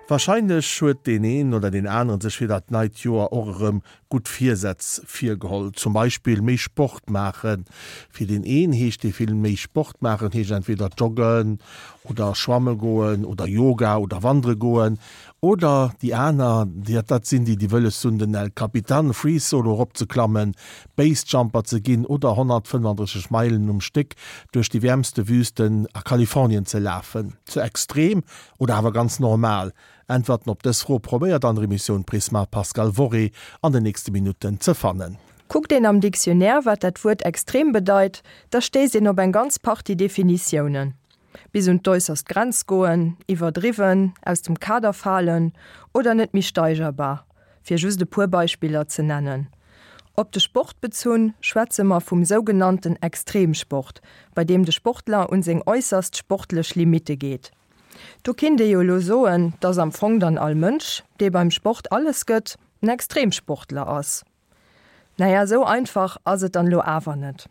Warscheinlech huet deen een oder deen aneren sech fir dat neit Joer och erëm gutt Virsätz virgeholl. Zum Beispill méi Sport maachen. Fir deen een heescht dee vill méi Sport maachen heescht entweder joggen oder schwamme goen oder Yoga oder wandere goen. Oder déi aner, dat sinn déi, déi wëlles hunn den El Capitan Free Solo eropzeklammen, Base-Jumper ze ginn oder 135 Meilen um Stéck duerch déi wäermste Wüsten a Kalifornien ze lafen. Ze extrem Oder awer ganz normal? Äntwerten op dës Fro probéiert an der Emissioun Prisma d'Pascale Worré an den nächste Minutten ze fannen. Kuckt een am Dictionnaire, wat dat Wuert extrem bedeit, da stéisst een op eng ganz Partie Definitiounen. Bis un d'äusserst Grenz goen, iwwerdriwwen, aus dem Kader falen oder net méi steigerbar, fir just e puer Beispiller ze nennen. Op de Sport bezunn, schwätze mer vum sougenannten Extremsport, bei deem de Sportler un seng äusserst sportlech Limitte geet. Do kinnt ee jo elo soen, dass am Fong dann all Mënsch, dee beim Sport alles gëtt, en Extremsportler ass. Naja, esou einfach ass et dann elo awer net.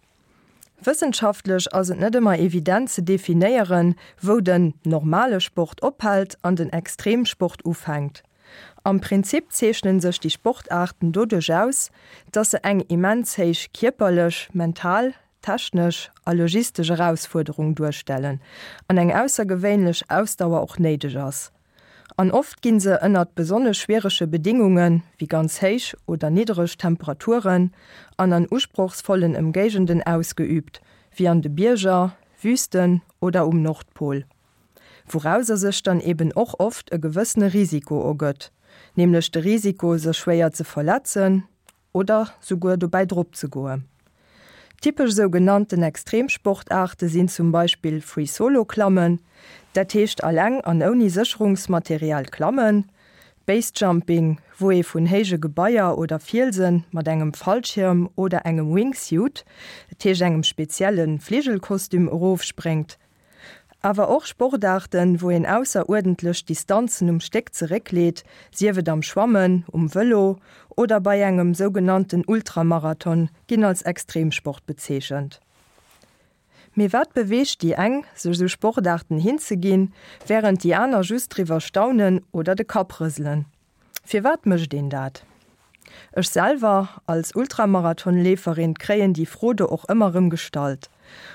Wëssenschaftlech ass et net ëmmer evident ze definéieren, wou den normale Sport ophält an den Extremsport ufänkt. Am Prinzip zeechnen sech déi Sportaarten doduerch aus, dass se eng immens héich kierperlech, mental, technesch a logistesch Erausfuerderung duerstellen an eng aussergewéinlech Ausdauer och néideg ass. An oft ginn se ënnert besonnesch schwierege Bedingungen, wéi ganz héich oder niddereg Temperaturen an an usprochsvollen Ëmgéigenden ausgeüübt, wéi an de Bierger, Wüsten oder um Nordpol. Wourauser sech dann eben och oft e gewëssene Risiko ergëtt, nämlech de Risiko sech schwéier ze verletzen oder souguer dobäi drop ze goen. Typesch sou genannten Extremsportaarte sinn zum Beispill Free Solo Klammen, dat heescht alleng an ouni Sécherungsmaterial klammen, Base Jumping, wou ee vun héije Gebaier oder Fielsen mat engem Fallschirm oder engem Wingsuit, dat heescht engem spezielle Fligelkostüm, erofspréngt, Awer och Sportaarten, wou een ausseruerdentlech Distanzen um Stéck zeréckleet, sief et am Schwammen, um Vëlo oder bei engem sougenannten Ultramarathon, ginn als Extremsport bezeechent. Mee wat beweegt déi eng, sech esou Sportaarten hinzeginn, wärend déi aner just driwwer staunen oder de Kapp rëselen? Firwat mécht een dat? Ech selwer, als Ultramarathonleeferin, kréien déi Fro do och ëmmer rëm gestallt.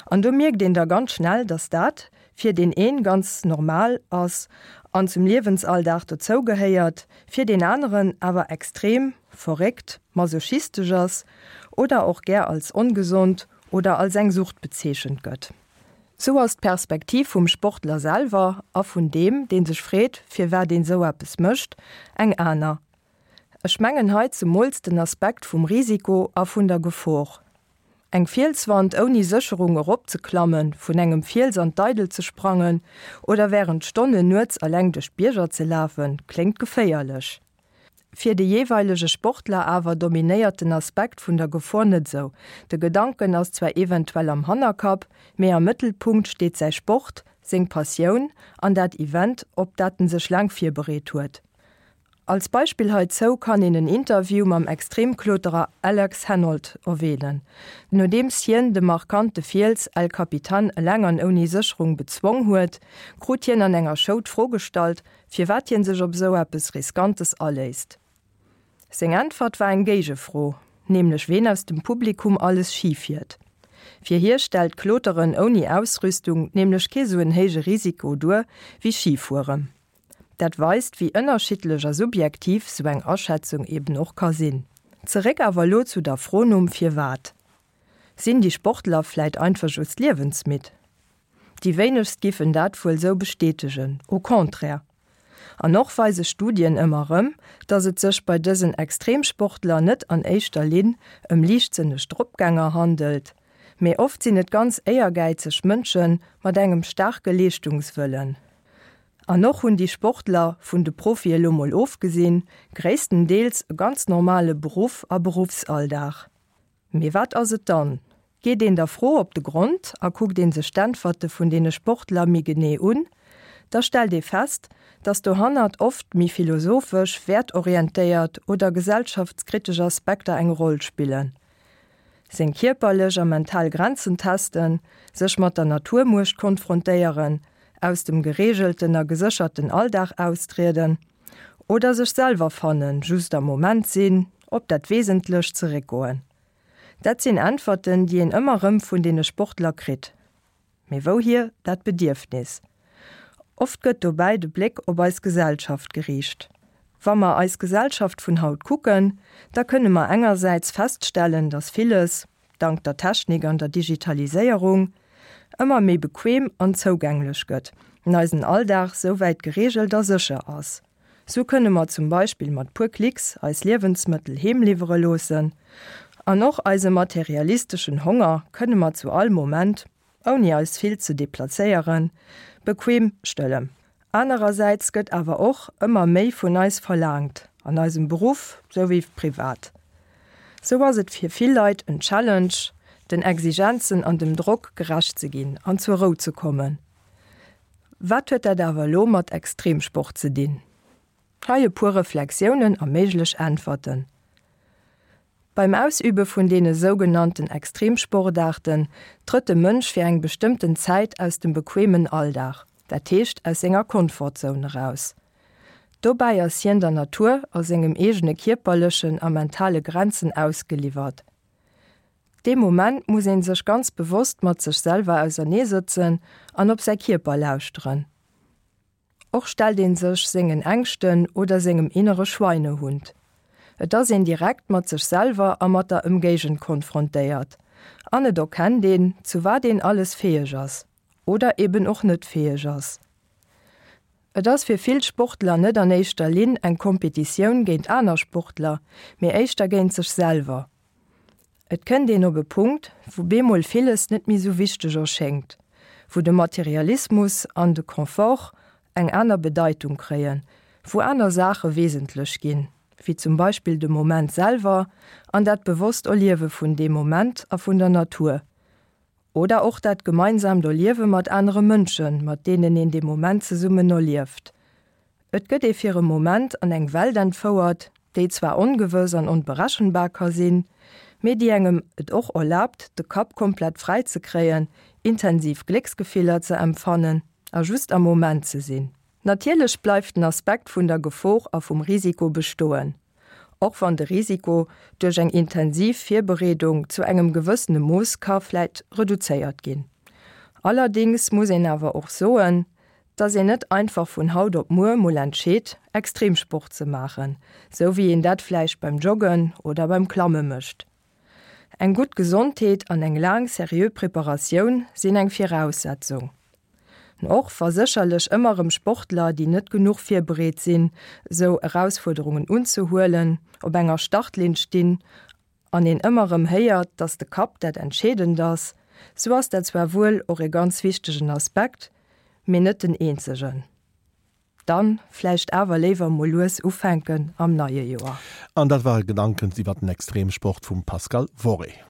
An do mierkt een da ganz schnell, dass dat fir deen een ganz normal ass an zum Liewensalldag dozou gehéiert, fir deen aneren awer extrem, verréckt, masochistesch ass oder och gär als ongesond oder als eng Sucht bezeechent gëtt. Sou ass d'Perspektiv vum Sportler selwer a vun deem, dee sech freet, firwat een sou eppes mécht, eng aner. Ech mengen hei zemools den Aspekt vum Risiko a vun der Gefor. Eng Fielswand ouni Sécherung eropzeklammen, vun engem Fiels an d'Eidel ze sprangen oder wärend Stonnen nuets eleng duerch d'Bierger ze lafen, kléngt geféierlech. Fir de jeeweilege Sportler awer dominéiert den Aspekt vun der Gefor net esou. De Gedanken ass zwar eventuell am Hannerkapp, mee am Mëttelpunkt steet säi Sport, seng Passioun an dat Event, op dat en sech laang virbereet huet. Als Beispill heizou kann een en Interview mam Extremkloterer Alex Honnold erwänen. Nodeems hien de markante Fiels El Capitan eleng an ouni Sécherung bezwong huet, krut hien an enger Show d'Fro gestallt, firwat hien sech op esou eppes Riskantes aléisst. Seng Äntwert war eng Géigefro, nämlech ween aus dem Publikum alles Schi fiert. Fir hie stellt Kloteren ouni Ausrüstung nämlech kee sou en héije Risiko duer wéi Schifueren. Dat weist, wéi ënnerschiddlech a subjektiv sou eng Aschätzung eben och ka sinn. Zeréck awer elo zu der Fro nom Firwat. Sinn déi Sportler vläit einfach just liewensmidd? Déi wéinegst giffen dat wuel sou bestätegen, au contraire. An och weise Studien ëmmer rëm, dass et sech bei dësen Extremsportler net an éischter Linn ëm liichtsënneg Dropgänger handelt, mee oft sinn et ganz éiergäizeg Mënsche mat engem staarke Leeschtungswëllen. An och hunn déi Sportler, vun de Profie elo mol ofgesinn, gréisstendeels e ganz normale Beruff a Beruffsalldag. Mee wat ass et dann? Geet een der Fro op de Grond a kuckt ee sech d'Äntwerte vun deene Sportler méi genee un, da stellt ee fest, datt dohannert oft méi philosophesch, wäertorientéiert oder gesellschaftskritesch Aspekter eng Roll spillen. Seng kierperlech a mental Grenzen testen, sech mat der Naturmuecht konfrontéieren, Aus dem gereegelten a gesécherten Alldag austrieden? Oder sech selwer fannen, just am Moment sinn, op dat Wesentlecht zeréckgoen? Dat sinn Äntwerten, déi een ëmmer rëm vun deene Sportler kritt. Mee wouhier dat Bedierfnis? Oft gëtt dobäi de Bléck op eis Gesellschaft geriicht. Wa mer eis Gesellschaft vun haut kucken, da kënne mer engersäits feststellen, dass villes, dank der Technik an der Digitaliséierung, ëmmer méi bequem an zougänglech gëtt an eisen Alldag souwäit gereegelt a sécher ass. Sou kënne mer zum Beispill mat puer Klicks eis Liewensmëttel heem liwwere loossen. An och eise materialisteschen Honger kënne mer zu all Moment, ouni eis vill ze deplazéieren, bequem stëllen. Anerersäits gëtt awer och ëmmer méi vun eis verlaangt, an eisem Beruff souwéi privat. Sou ass et fir vill Leit en Challenge, den Exigenzen an dem Drock gerecht ze ginn an zur Rou ze kommen. Wat huet dat awer elo mat Extremsport ze dinn? Hei e puer Reflexiounen a méiglech Äntwerten. Beim Ausübe vun deene sougenannten Extremsportaarten trëtt de Mënsch fir eng bestëmmten Zäit aus dem bequemen Alldag, dat heescht aus senger Comfortzone eraus. Dobäi ass hien der Natur a sengem eegene kierperlechen a mentale Grenzen ausgeliwwert. Dee Moment muss een sech ganz bewosst mat sech selwer auserneesëtzen an op säi Kierper lauschteren. Och stellt een sech sengen Ängschten oder sengem innere Schweinehund. Et ass een direkt mat sech selwer a mat der Ëmgéigend konfrontéiert an et erkennt een, zu wat een alles fäeg ass oder eben och net fäeg ass. Et ass fir vill Sportler net an éischter Linn eng Kompetitioun géint aner Sportler, mee éischter géint sech selwer. Et kënnt een op e Punkt, wou bemol villes net méi sou wichteg erschéngt, wou de Materialismus an de Confort eng aner Bedeitung kréien, wou aner Saache wesentlech ginn, wéi zum Beispill de Moment selwer an dat bewosst Erliewe vun deem Moment a vun der Natur. Oder och dat gemeinsaamt Erliewe mat anere Mënschen, mat deenen een dee Moment zesummen erlieft. Et gëtt ee fir e Moment an eng Welt entfouert, déi zwar ongewëss an onberechenbar ka sinn, mee déi engem et och erlaabt, de Kapp komplett fräi ze kréien, intensiv Glécksgefiller ze empfannen a just am Moment ze sinn. Natierlech bleift den Aspekt vun der Gefor a vum Risiko bestoen. Och wann de Risiko duerch eng intensiv Virbereedung zu engem gewëssene Mooss ka vläit reduzéiert ginn. Allerdéngs muss een awer och soen, dass een net einfach vun haut op muer mol entscheet, Extremsport ze maachen, sou wéi een dat vläicht beim Joggen oder beim Klamme mécht. Eng gutt Gesondheet an eng laang seriö Preparatioun sinn eng Viraussetzung. Och wa sécherlech ëmmer erëm Sportler, déi net genuch virbereet sinn, sou Erausfuerderungen unzehuelen, op enger Startlinn stinn an een ëmmer erëm héiert, dass de Kapp dat Entscheedend ass, sou ass dat zwar wuel och e ganz wichtegen Aspekt, mee net den eenzegen. Dann vläicht awer léiwer mol lues ufänken am neie Joer. An dat ware Gedanken iwwer den Extremsport vum Pascal Worré.